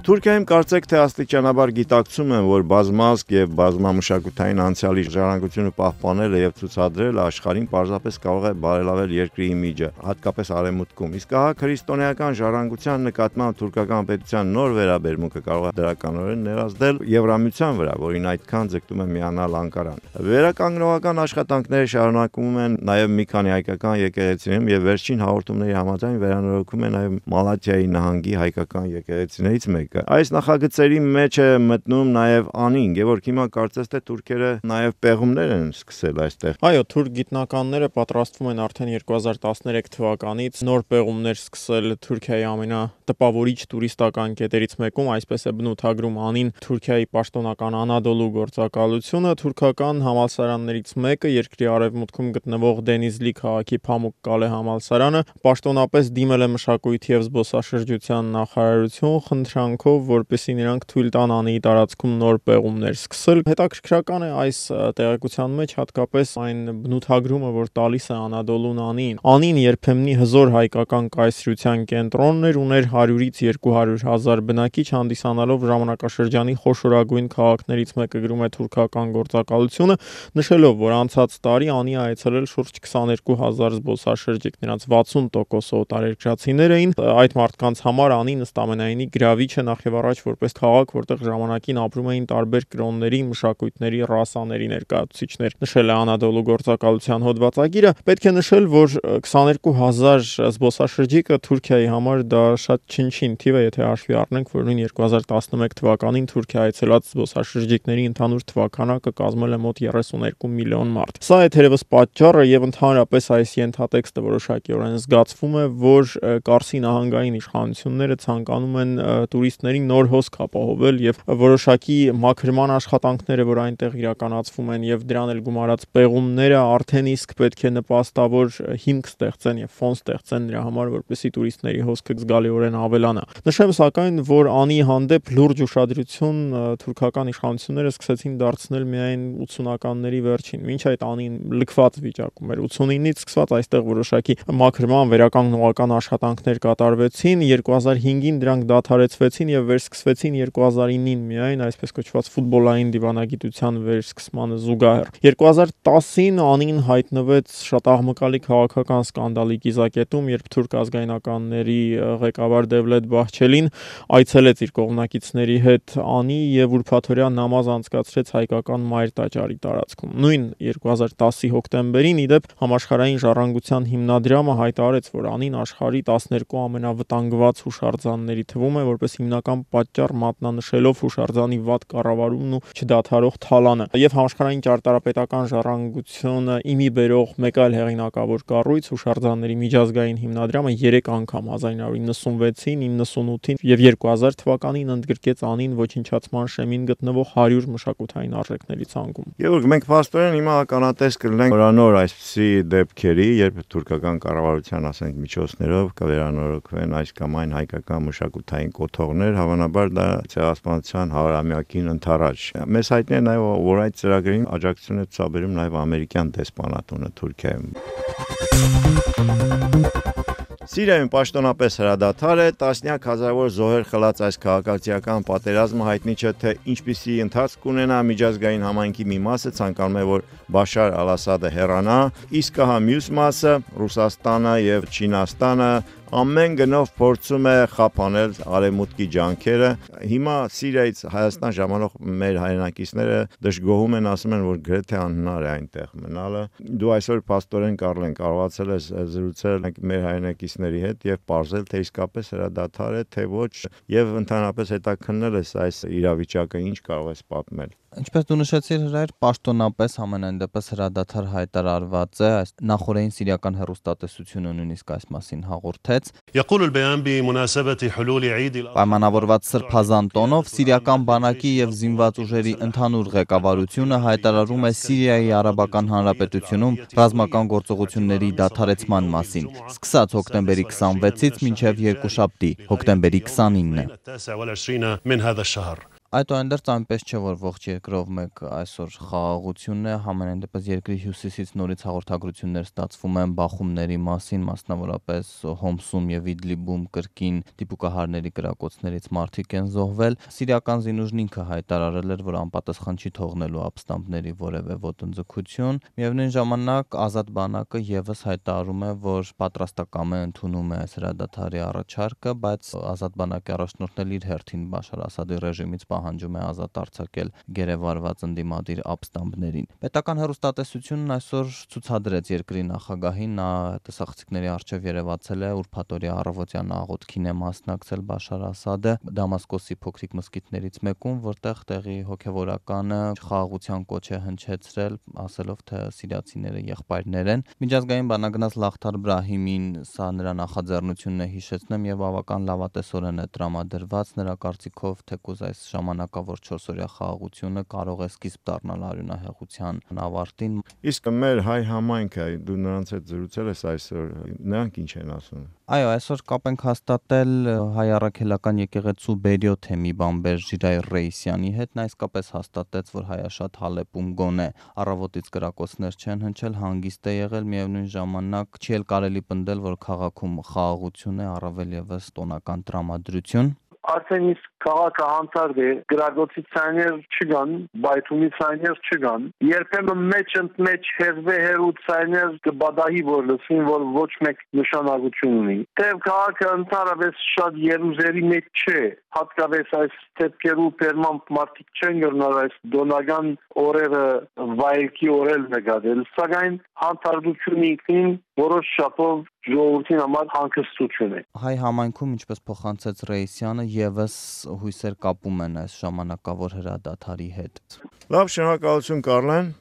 Թուրքիայում կարծեք թե աստիճանաբար գիտակցում են, որ բազմազգ եւ բազմամշակութային անցյալի ժառանգությունը պահպանելը եւ ցուցադրելը աշխարհին պարզապես կարող է բարելավել երկրի իմիջը, հատկապես արևմուտքում։ Իսկ ահա քրիստոնեական ժառանգության նկատմամբ թուրքական պետության նոր վերաբերմունքը կարող է դրականորեն ներազդել Եվրամիության վրա, որին այդքան ձգտում է միանալ Անկարան։ Վերականգնողական աշխատանքները շարունակվում են նաեւ մի քանի հայկական եկեղեցիներում եւ վերջին հաղորդումների համաձայն վերանորոգվում է նաեւ Մալաթիայի նահանգի հայկական եկեղեցիներից մեկը։ Այս նախագծերի մեջ է մտնում նաև Անին, Գևորգ, հիմա կարծես թե թուրքերը նաև պեղումներ են սկսել այստեղ։ Այո, թուրք գիտնականները պատրաստվում են արդեն 2013 թվականից նոր պեղումներ սկսել Թուրքիայի ամենատպավորիչ տուրիստական կետերից մեկում, այսպես է բնութագրում Անին Թուրքիայի պաշտոնական Անադոլու գործակալությունը։ Թուրքական համալսարաններից մեկը, երկրի արևմուտքում գտնվող Դենիզլի քաղաքի Փամուկ Կալե համալսարանը, պաշտոնապես դիմել է մշակույթի եւ զբոսաշրջության նախարարություն խնդրանքով, որպեսզի նրանք թույլ տան Անիի տարածքում նոր պեղումներ սկսել։ Հետաքրքրական է այս տեղեկության մեջ հատկապես այն բնութագրումը, որ տալիս է Անադոլուն Անին։ Անին երբեմնի հզոր հայկական կայսրության կենտրոնն էր, ուներ 100-ից 200 հազար բնակիչ, հանդիսանալով ժամանակաշրջանի խոշորագույն քաղաքներից մեկը, գրում է թուրքական գործակալությունը, նշելով, որ անցած տարի Անի այցելել շուրջ 22,000 զբոսաշրջիկ, նրանց 60% օտարերկրացիներ էին։ Այդ մարդկանց համար Անին ըստ ամենայնի գրավիչ է նախ եւ առաջ որպես քաղաք, որտեղ ժամանակին ապրում էին տարբեր կրոնների, մշակույթների, ռասաների ներկայացուցիչներ, նշել է Անադոլու գործակալության հոդվածագիրը։ Պետք է նշել, որ 22,000 զբոսաշրջիկը Թուրքիայի համար դա շատ չնչին թիվ է, եթե հաշվի առնենք, որ նույն 2011 թվականին Թուրքիա այցելած զբոսաշրջիկների ընդհանուր թվականակը կազմել է մոտ 32 միլիոն մարդ։ Սա է թերևս պատճառը եւ ընդհանրապես այս ենթատեքստը որոշակիորեն զգացվում է, որ Կարսի նահանգային իշխանությունները ցանկանում են տուրիստներին նոր հոսք ապահովել եւ որոշակի մաքրման աշխատանքները, որ այնտեղ իրականացվում են եւ դրան էլ գումարած պեղումները արդեն իսկ պետք է նպաստավոր հիմք ստեղծեն եւ ֆոն ստեղծեն նրա համար, որպեսզի տուրիստների հոսքը զգալիորեն ավելանա։ Նշեմ սակայն, որ Անի հանդեպ լուրջ ուշադրություն թուրքական իշխանությունները սկսեցին դարձնել միայն 80-ականների վերջին, մինչ այդ Անին լքված վիճակում էր 89-ից սկսված այստեղ որոշակի մաքրման վերականգնողական աշխատանքներ կատարվեցին, 2005-ին դրանք դադարեցվեցին եւ վերսկսվեցին 2009-ին միայն այսպես կոչված ֆուտբոլային դիվանագիտության վերսկսմանը զուգահեռ։ 2010-ին Անին հայտնվեց շատ աղմկալի քաղաքական սկանդալի կիզակետում, երբ թուրք ազգայնականների ղեկավար Դևլետ Բահչելին այցելեց իր կողմնակիցների հետ Անի եւ ուրբաթօրյա նամազ անցկացրեց հայկական Մայր տաճարի տարածքում։ Նույն 2010-ի հոկտեմբերին իդեպ համաշխարհային ժառանգության հիմնադրամը հայտարարեց, որ Անին աշխարհի 12 ամենավտանգված հուշարձանների թվում է, որպես հիմնական պատճառ մատնանշելով հուշարձանի վատ կառավարումն ու չդադարող թալանը։ Եվ համաշխարհային ճարտարապետական ժառանգությունը իմի բերող մեկ այլ հեղինակավոր կառույց հուշարձանների միջազգային հիմնադրամը 3 անգամ 1996-ին, 98-ին եւ 2000 թվականին ընդգրկեց Անին ոչնչացման շեմին գտնվող 100 մշակութային արժեքների ցանկում։ Գևորգ, մենք փաստորեն հիմա ականատես կլինենք նորանոր այսպիսի դեպքերի, երբ թուրքական կառավարության, ասենք, միջոցներով կվերանորոգվեն այս կամ այն հայկական մշակութային կոթողներ, հավանաբար դա ցեղասպանության 100-ամյակին ընթരാճ։ Մեզ հայտնի է նաև, որ այդ ծրագրին աջակցություն է ցուցաբերում նաև ամերիկյան դեսպանատունը Թուրքիայում։ Սիրիայում պաշտոնապես հրադադար է, տասնյակ հազարավոր զոհեր խլած այս քաղաքացիական պատերազմը հայտնի չէ, թե ինչպիսի ընթացք կունենա, միջազգային համայնքի մի մասը ցանկանում է, որ Բաշար Ալ-Ասադը հեռանա, իսկ հա մյուս մասը Ռուսաստանը եւ Չինաստանը ամեն գնով փորձում է խափանել արևմուտքի ջանքերը։ Հիմա Սիրիայից Հայաստան ժամանող մեր հայրենակիցները դժգոհում են, ասում են, որ գրեթե անհնար է այնտեղ մնալը։ Դու այսօր փաստորեն կարողացել ես զրուցել մեր հայրենակիցների հետ եւ պարզել, թե իսկապես հրադադար է, թե ոչ, եւ ընդհանրապես հետաքննել ես այս իրավիճակը, ինչ կարող ես պատմել։ Ինչպես դու նշեցիր, Հրայր, պաշտոնապես ամենայն դեպս հրադադար հայտարարված է, այս նախորդային սիրիական հեռուստատեսությունը նույնիսկ այս մասին հաղորդեց։ Պայմանավորված սրբազան տոնով սիրիական բանակի եւ զինված ուժերի ընդհանուր ղեկավարությունը հայտարարում է Սիրիայի Արաբական Հանրապետությունում ռազմական գործողությունների դադարեցման մասին, սկսած հոկտեմբերի 26-ից մինչև երկուշաբթի, հոկտեմբերի 29-ը։ Այդուհանդերձ այնպես չէ, որ ողջ երկրով մեկ այսօր խաղաղությունն է, համենայն դեպս երկրի հյուսիսից նորից հաղորդագրություններ ստացվում են բախումների մասին, մասնավորապես Հոմսում եւ Իդլիբում կրկին դիպուկահարների կրակոցներից մարդիկ են զոհվել։ Սիրիական զինուժն ինքը հայտարարել էր, որ անպատասխան չի թողնելու ապստամբների որևէ ոտնձգություն։ Միևնույն ժամանակ Ազատ բանակը եւս հայտարարում է, որ պատրաստակամ է ընդունում է այս հրադադարի առաջարկը, բայց Ազատ բանակի առաջնորդն իր հերթին Բաշար Ասադի ռեժիմից պահանջում է ազատ արձակել գերեվարված ընդդիմադիր ապստամբներին։ Պետական հեռուստատեսությունն այսօր ցուցադրեց երկրի նախագահին, նա տեսախցիկների առջև երևացել է, ուրբաթօրյա առավոտյան աղոթքին է մասնակցել Բաշար Ասադը Դամասկոսի փոքրիկ մզկիթներից մեկում, որտեղ տեղի հոգևորականը խաղաղության կոչ է հնչեցրել, ասելով, թե սիրիացիները եղբայրներ են։ Միջազգային բանագնաց Լախթար Բրահիմին սա նրա նախաձեռնությունն է հիշեցնում եւ բավական լավատեսորեն է տրամադրված, նրա կարծիքով թեկուզ այս ժամանակավոր 4-օրյա խաղաղությունը կարող է սկիզբ դառնալ արյունահեղության ավարտին։ Իսկ մեր հայ համայնքը, դու նրանց հետ զրուցել ես այսօր, նրանք ինչ են ասում։ Այո, այսօր կապ ենք հաստատել հայ առաքելական եկեղեցու Բերյո թեմի բամբեր Ժիրայր Ռեյսյանի հետ, նա իսկապես հաստատեց, որ հայաշատ Հալեպում գոնե առավոտից կրակոցներ չեն հնչել, հանգիստ է եղել, միևնույն ժամանակ չի էլ կարելի պնդել, որ քաղաքում խաղաղություն է, առավել եւս տոնական տրամադրություն։ Արդեն իսկ քաղաքը հանցարդ է, գրագոցի ցայներ չկան, բայթումի ցայներ չկան, երբեմն մեջ ընդմեջ հերվե ցայներ կբադահի որ լսին, որ ոչ մեկ նշանակություն ունի։ Թեև քաղաքը ընդհանրապես շատ երուզերի մեջ չէ, հատկապես այս դեպքերու պերմամբ մարդիկ չեն գնալ այս դոնական օրերը վայելքի օրել նկատել, սակայն հանցարդությունը ինքնին որոշ շապով ժողովրդին համար հանգստություն է։ Հայ համայնքում, ինչպես փոխանցեց Ռեյսյանը, եւս հույսեր կապում են այս ժամանակավոր հրադադարի հետ։ Լավ, շնորհակալություն Կարլեն։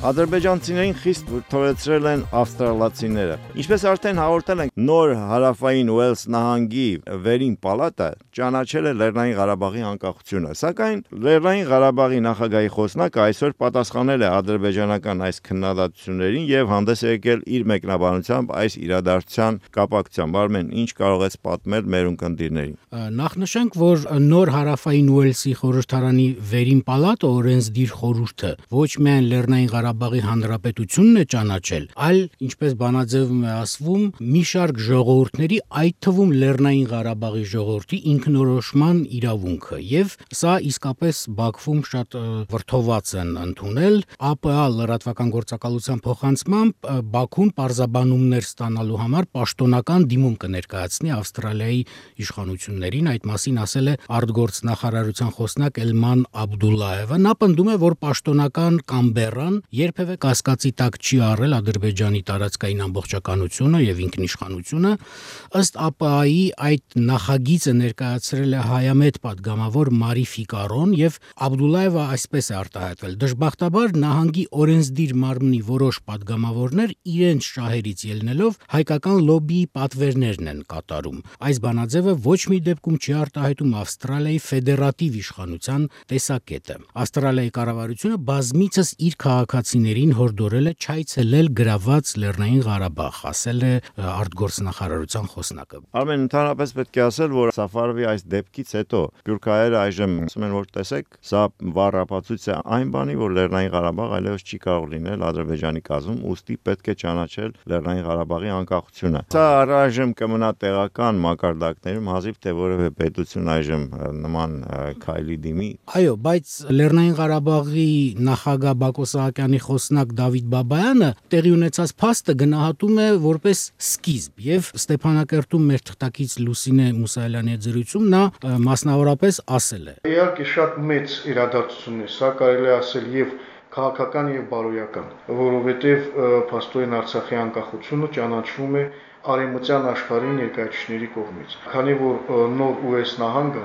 Ադրբեջանցիներին խիստ վրդովեցրել են ավստրալացիները։ Ինչպես արդեն հաղորդել ենք, նոր հարավային Ուելս նահանգի վերին պալատը ճանաչել է Լեռնային Ղարաբաղի անկախությունը, սակայն Լեռնային Ղարաբաղի նախագահի խոսնակը այսօր պատասխանել է ադրբեջանական այս քննադատություններին եւ հանդես է եկել իր մեկնաբանությամբ այս իրադարձության կապակցությամբ։ Արմեն, ինչ կարող ես պատմել մեր ունկնդիրներին։ Նախ նշենք, որ նոր հարավային Ուելսի խորհրդարանի վերին պալատը օրենսդիր խորհուրդը ոչ միայն Լեռնային Ղարաբաղի Հանրապետությունն է ճանաչել, այլ, ինչպես բանաձևում է ասվում, մի շարք ժողովուրդների, այդ թվում Լեռնային Ղարաբաղի ժողովրդի ինքնորոշման իրավունքը, եւ սա իսկապես Բաքվում շատ վրդոված են ընդունել։ ԱՊԱ լրատվական գործակալության փոխանցմամբ Բաքուն պարզաբանումներ ստանալու համար պաշտոնական դիմում կներկայացնի Ավստրալիայի իշխանություններին, այդ մասին ասել է արտգործնախարարության խոսնակ Էլման Աբդուլլաևը։ Նա պնդում է, որ պաշտոնական Կամբերան երբևէ կասկածի տակ չի առել Ադրբեջանի տարածքային ամբողջականությունը եւ ինքնիշխանությունը։ Ըստ ԱՊԱ-ի այդ նախագիծը ներկայացրել է հայամետ падգամավոր Մարի Ֆիկարոն եւ Աբդուլլաևը այսպես է արտահայտվել. դժբախտաբար նահանգի օրենսդիր մարմնի որոշ падգամավորներ իրենց շահերից ելնելով հայկական լոբիի պատվերներն են կատարում։ Այս բանաձևը ոչ մի դեպքում չի արտահայտում Ավստրալիայի ֆեդերատիվ իշխանության տեսակետը։ Ավստրալիայի կառավարությունը բազմիցս իր քաղաքացիներին հորդորել է չայցելել գրաված Լեռնային Ղարաբաղ, ասել է արտգործնախարարության խոսնակը։ Արմեն, ընդհանրապես պետք է ասել, որ Սաֆարովի այս դեպքից հետո սփյուռքահայերը այժմ ասում են, որ տեսեք, սա վառ ապացույց է այն բանի, որ Լեռնային Ղարաբաղ այլևս չի կարող լինել Ադրբեջանի կազմում, ուստի պետք է ճանաչել Լեռնային Ղարաբաղի անկախությունը։ Սա առայժմ կմնա տեղական մակարդակներում, հազիվ թե որևէ պետություն այժմ նման քայլի դիմի։ Այո, բայց Լեռնային Ղարաբաղի նախագահ Բակո Սահակյանի խոսնակ Դավիթ Բաբայանը տեղի ունեցած փաստը գնահատում է որպես սկիզբ եւ Ստեփանակերտում մեր թղթակից Լուսինե Մուսայելյանի հետ զրույցում նա մասնավորապես ասել է. Իհարկե շատ մեծ իրադարձություն է, սա կարելի է ասել եւ քաղաքական եւ բարոյական, որովհետեւ փաստորեն Արցախի անկախությունը ճանաչվում է արևմտյան աշխարհի ներկայացուցիչների կողմից։ Քանի որ նոր US նահանգը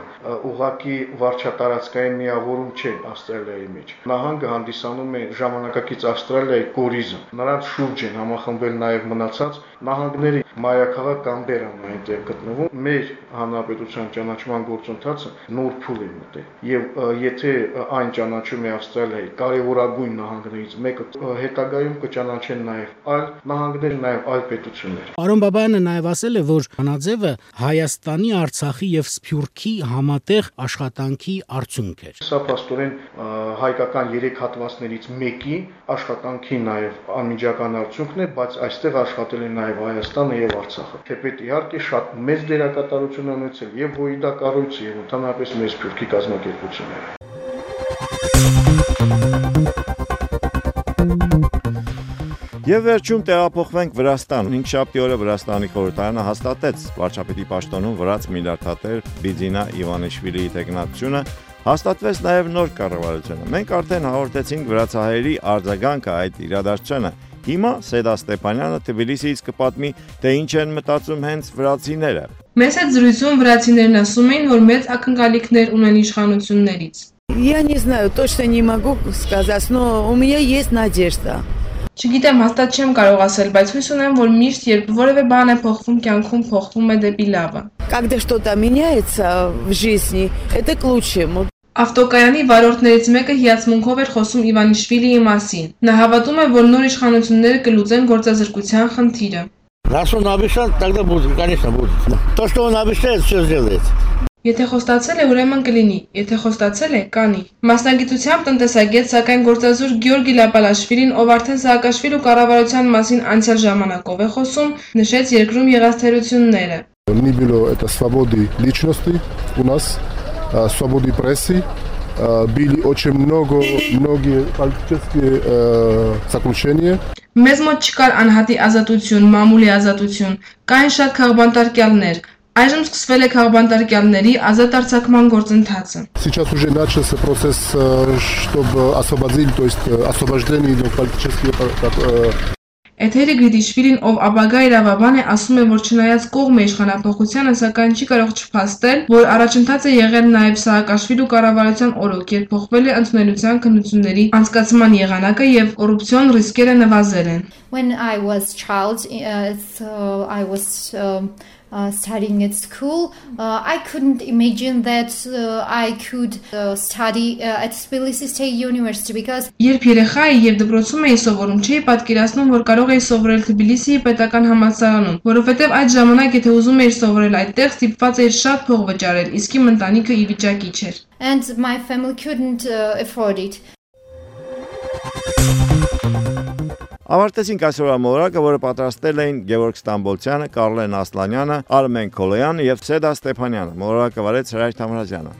ուղղակի վարչատարածքային միավորում չէ Ավստրալիայի մեջ։ Նահանգը հանդիսանում է ժամանակակից Ավստրալիայի կորիզը։ Նրանց շուրջ են համախմբել նաև մնացած նահանգների մայրաքաղաք Կամբերան այնտեղ գտնվում։ Մեր հանրապետության ճանաչման գործընթացը նոր փուլ է մտել։ Եվ եթե այն ճանաչում է Ավստրալիայի կարևորագույն նահանգներից մեկը, հետագայում կճանաչեն նաև այլ նահանգներ, նաև այլ պետություններ։ Պարոն Բաբայանը նաև ասել է, որ Վանաձևը Հայաստանի, Արցախի եւ Սփյուռքի համատեղ աշխատանքի արդյունք էր։ Սա փաստորեն հայկական 3 հատվածներից մեկի աշխատանքի նաև անմիջական արդյունքն է, բայց այստեղ աշխատել են նաև Հայաստանը եւ Արցախը։ Թեպետ իհարկե շատ մեծ դերակատարություն են ունեցել եւ ՀՅԴ կառույցը եւ ընդհանրապես մեր Սփյուռքի կազմակերպությունները։ Եվ վերջում տեղափոխվենք Վրաստան։ 5-շաբթի օրը Վրաստանի խորհրդարանը հաստատեց վարչապետի պաշտոնում վրաց միլիարդատեր Բիձինա Իվանիշվիլիի տեխնացությունը, հաստատվեց նաև նոր կառավարությունը։ Մենք արդեն հաղորդեցինք վրացահայերի արձագանքը այդ իրադարձությանը։ Հիմա Սեդա Ստեփանյանը Թբիլիսիից կպատմի, թե ինչ են մտածում հենց врացիները։ Մեծ այդ զրույցում վրացիներն ասում էին, որ մեծ ակնկալիքներ ունեն իշխանություններից։ Я не знаю, точно не могу сказать, но у меня есть надежда. Չգիտեմ, հաստատ չեմ կարող ասել, բայց հույս ունեմ, որ միշտ երբ որևէ բան է փոխվում կյանքում, փոխվում է դեպի լավը։ Когда что-то меняется в жизни, это к лучшему. Ավտոկայանի վարորդներից մեկը հիացմունքով էր խոսում Իվանիշվիլիի մասին։ Նա հավատում է, որ նոր իշխանությունները կլուծեն գործազրկության խնդիրը։ Раз он обещал, тогда будет, конечно, будет. То, что он обещает, все сделает. Եթե խոստացել է, ուրեմն կլինի, եթե խոստացել է, կանի։ Մասնագիտությամբ տնտեսագետ, սակայն գործազուրկ Գյորգի Լապալաշվիլին, ով արդեն Սաակաշվիլու կառավարության մասին անցյալ ժամանակով է խոսում, նշեց երկրում եղած թերությունները։ Не было это свободы личности у нас, свободы прессы, были очень многие политические заключения. Մեզ մոտ չկար անհատի ազատություն, մամուլի ազատություն, կային շատ քաղբանտարկյալներ։ Այժմ սկսվել է քաղբանտարկյալների ազատ արձակման գործընթացը։ Сейчас уже начался процесс, чтобы освободить, то есть освобождение политических. Էթերի Գրիդիշվիլին, ով ապագա իրավաբան է, ասում է, որ չնայած կողմ է իշխանափոխությանը, սակայն չի կարող չփաստել, որ առաջընթաց է եղել նաև Սաակաշվիլու կառավարության օրոք, երբ փոխվել է ընդունելության քննությունների անցկացման եղանակը եւ կոռուպցիոն ռիսկերը նվազել են։ When I was child, I was studying at school, I couldn't imagine that I could study at Tbilisi State University because Երբ երեխա էի եւ դպրոցում էի սովորում, չէի պատկերացնում, որ կարող էի սովորել Թբիլիսիի պետական համալսարանում, որովհետեւ այդ ժամանակ եթե ուզում էիր սովորել այդտեղ, ստիպված էիր շատ փող վճարել, իսկ իմ ընտանիքը ի վիճակի չէր։ And my family couldn't afford it. Ավարտեցինք այսօրվա մոլորակը, որը պատրաստել էին Գևորգ Ստամբոլցյանը, Կարլեն Ասլանյանը, Արմեն Քոլոյանը եւ Սեդա Ստեփանյանը։ Մոլորակը վարեց Հրայր Թամրազյանը։